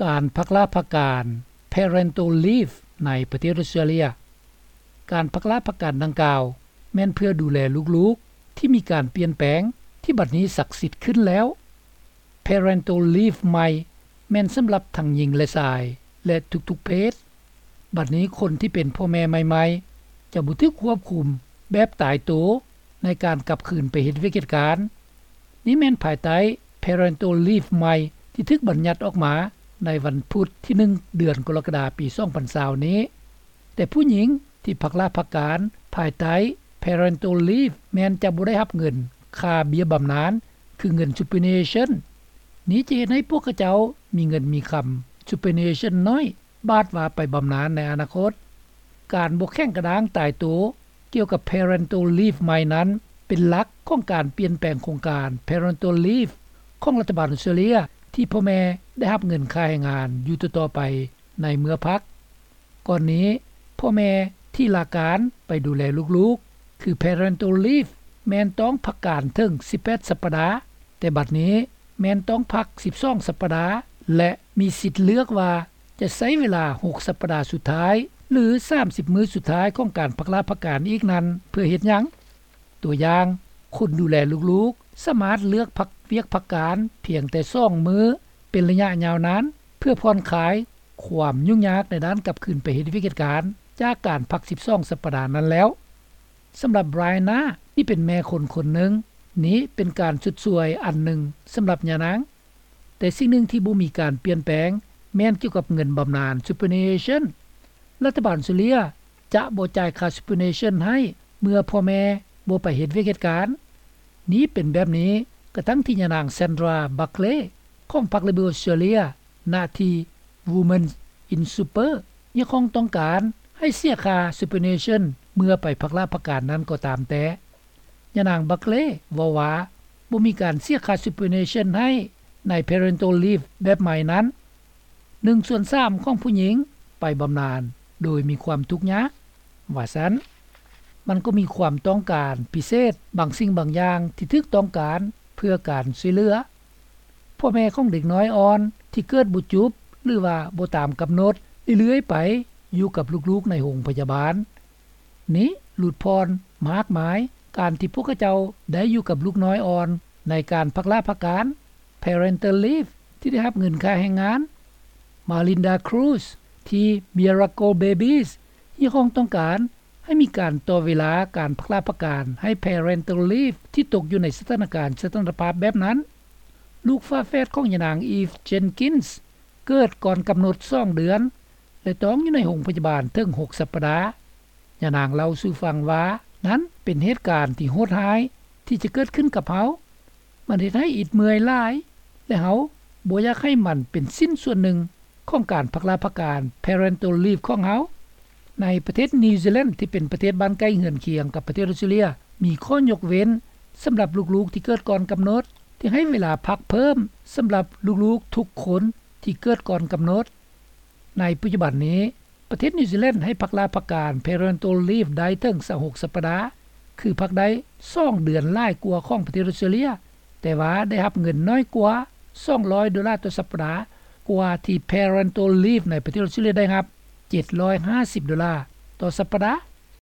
ການພັກລາພັກການ Parental Leave ໃນປະເທດອອສເຕຣເລຍ. ການພັກລາພັກການດັ່ງກ່າວ ແມ່ນເພື່ອດູແລລູກໆ ທີ່ມີການປ່ຽນແປງ ທີ່ບັດນີ້ສັກສິດຂຶ້ນແລ້ວ. Parental Leave ໃໝ່ ແມ່ນສຳລັບທັງຍິງ ແລະ ຊາຍ ແລະ ທຸກໆເພດ. ບັດນີ້ຄົນທີ່ເປັນພໍ່ແມ່ໃໝ່ໆ ຈະບໍ່ຖືກຄວບຄຸມແບບຕາຍໂຕໃນການກັບຄືນໄປເຮັດວຽກເຮັດການ. ນີ້ແມ່ນພາຍໃຕ້ Parental Leave ໃໝ່ ທີ່ຖືກບັນຍັດອອກມາໃນວັນພຸດທີໜຶ່ງ ເດືອນກໍລະກະດາ ປີສອງພັນຊາວນີ້. ແຕ່ຜູ້ຍິງທີ່ພັກລາພັກການພາຍໃຕ້ Parental Leave ແມ່ນຈະບໍ່ໄດ້ຮັບເງິນຄ່າເບ້ຍບຳນານ ຄືເງິນ superannuation. ນີ້ຈະເຮັດໃຫ້ພວກເຂົາເຈົ້າມີເງິນມີຄຳ superannuation ໜ້ອຍ ບາດວ່າໄປບຳນານໃນອະນາຄົດ. ການບໍ່ແຂງກະດ້າງຕາຍໂຕກ່ຽວກັບ Parental Leave ໃໝ່ນັ້ນ ເປັນຫຼັກຂອງການປ່ຽນແປງໂຄງການ Parental Leave ຂອງລັດຖະບານອອສເຕຣເລຍ ທີ່ພໍ່ແມ່ໄດ້ຮັບເງິນຄ່າແຮງງານຢູ່ຕໍ່ໆໄປໃນເມື່ອພັກ. ກ່ອນນີ້ ພໍ່ແມ່ທີ່ລາການໄປດູແລລູກໆ ຄື Parental Leave ແມ່ນຕ້ອງພັກການເຖິງສິບແປດສັບປະດາ, ແຕ່ບັດນີ້ແມ່ນຕ້ອງພັກສິບສອງສັບປະດາ ແລະ ມີສິດເລືອກວ່າຈະໃຊ້ເວລາຫົກສັບປະດາສຸດທ້າຍ ຫຼື ສາມສິບມື້ສຸດທ້າຍຂອງການພັກລາພັກການອີກນັ້ນ ເພື່ອເຮັດຫຍັງ? ຕົວຢ່າງ, ຄົນດູແລລູກໆ ສາມາດເລືອກພັກວຽກພັກການພຽງແຕ່ສອງມື້ ເປັນໄລຍະຍາວນານ ເພື່ອຜ່ອນຄາຍຄວາມຫຍຸ້ງຍາກໃນດ້ານກັບຄືນໄປເຮັດວຽກເຮັດການ ຈາກການພັກສິບສອງສັບປະດານັ້ນແລ້ວ. ສຳລັບ Brianna ທີ່ເປັນແມ່ຄົນຄົນໜຶ່ງ, ນີ້ເປັນການຊົດຊ່ວຍອັນໜຶ່ງສຳລັບຍານາງ. ແຕ່ສິ່ງໜຶ່ງທີ່ບໍ່ມີການປ່ຽນແປງ ແມ່ນກ່ຽວກັບເງິນບຳນານ Superannuation. ລັດຖະບານອອສເຕຣເລຍຈະບໍ່ຈ່າຍຄ່າ Superannuation ໃຫ້ເມື່ອພໍ່ແມ່ບໍ່ໄປເຮັດວຽກເຮັດການ. ນີ້ເປັນແບບນີ້ກະທັ່ງທີ່ຍານາງ Sandra Buckley ຂອງພັກ Labor Australia ໜ້າທີ່ Women in Super ຮຽກຮ້ອງຕ້ອງການໃຫ້ເສຍຄ່າ Superannuation ເມື່ອໄປພັກລາພັກການນັ້ນກໍຕາມແຕ່. ຍານາງ Buckley ເວົ້າວ່າ ບໍ່ມີການເສຍຄ່າ Superannuation ໃຫ້ໃນ Parental Leave ແບບໃໝ່ນັ້ນ. ໜຶ່ງສ່ວນສາມຂອງຜູ້ຍິງໄປບຳນານໂດຍມີຄວາມທຸກຍາກ ວ່າຊັ້ນ. ມັນກໍມີຄວາມຕ້ອງການພິເສດບາງສິ່ງບາງຢ່າງທີ່ຖືກຕ້ອງການເພື່ອການຊ່ວຍເຫຼືອ. ພໍ່ແມ່ຂອງເດັກນ້ອຍອ່ອນທີ່ເກີດບໍ່ຈຸບ ຫຼືວ່າບໍ່ຕາມກຳນົດເລື້ອຍໆໄປ ຢູ່ກັບລູກໆໃນໂຮງພະຍາບານ. ນີ້ຫຼຸດຜ່ອນມາກມາຍການທີ່ພວກເຂົາເຈົ້າໄດ້ຢູ່ກັບລູກນ້ອຍອ່ອນໃນການພັກລາພັກການ Parental Leave ທີ່ໄດ້ຮັບເງິນຄ່າແຮງງານ. Malinda Cruz ທີ່ Miracle Babies ຮຽກຮ້ອງຕ້ອງການໃຫ້ມີການຕໍ່ເວລາການພັກລາພັກການໃຫ້ Parental Leave ທີ່ຕົກຢູ່ໃນສະຖານະການສະຖານະພາບແບບນັ້ນ. ລູກຝາແຝດຂອງຍານາງ Eve Jenkins ເກີດກ່ອນກຳນົດສອງເດືອນ ແລະ ຕ້ອງຢູ່ໃນໂຮງພະຍາບານເຖິງຫົກສັບປະດາ. ຍານາງເລົ່າສູ່ຟັງວ່າ ນັ້ນເປັນເຫດການທີ່ໂຫດຮ້າຍທີ່ຈະເກີດຂຶ້ນກັບເຮົາ. ມັນເຮັດໃຫ້ອິດເມື່ອຍຫຼາຍ ແລະ ເຮົາບໍ່ຢາກໃຫ້ມັນເປັນຊິ້ນສ່ວນໜຶ່ງຂອງການພັກລາພັກການ Parental Leave ຂອງເຮົາ. ໃນປະເທດນິວຊີແລນ ທີ່ເປັນປະເທດບ້ານໃກ້ເຮືອນຄຽງກັບປະເທດອອສເຕຣເລຍ ມີຂໍ້ຍົກເວັ້ນສຳລັບລູກໆທີ່ເກີດກ່ອນກຳນົດ ທີ່ໃຫ້ເວລາພັກເພີ່ມສຳລັບລູກໆທຸກຄົນທີ່ເກີດກ່ອນກຳນົດ. ໃນປັດຈຸບັນນີ້ ປະເທດນິວຊີແລນໃຫ້ພັກລາພັກການ Parental Leave ໄດ້ເຖິງຊາວຫົກສັບປະດາ ຄືພັກໄດ້ສອງເດືອນຫຼາຍກວ່າຂອງປະເທດອອສເຕຣເລຍ, ແຕ່ວ່າໄດ້ຮັບເງິນໜ້ອຍກວ່າສອງຮ້ອຍໂດລາຕໍ່ສັບປະດາ ກວ່າທີ່ Parental Leave ໃນປະເທດອອສເຕຣເລຍໄດ້ຮັບເຈັດຮ້ອຍຫ້າສິບໂດລາຕໍ່ສັບປະດາ.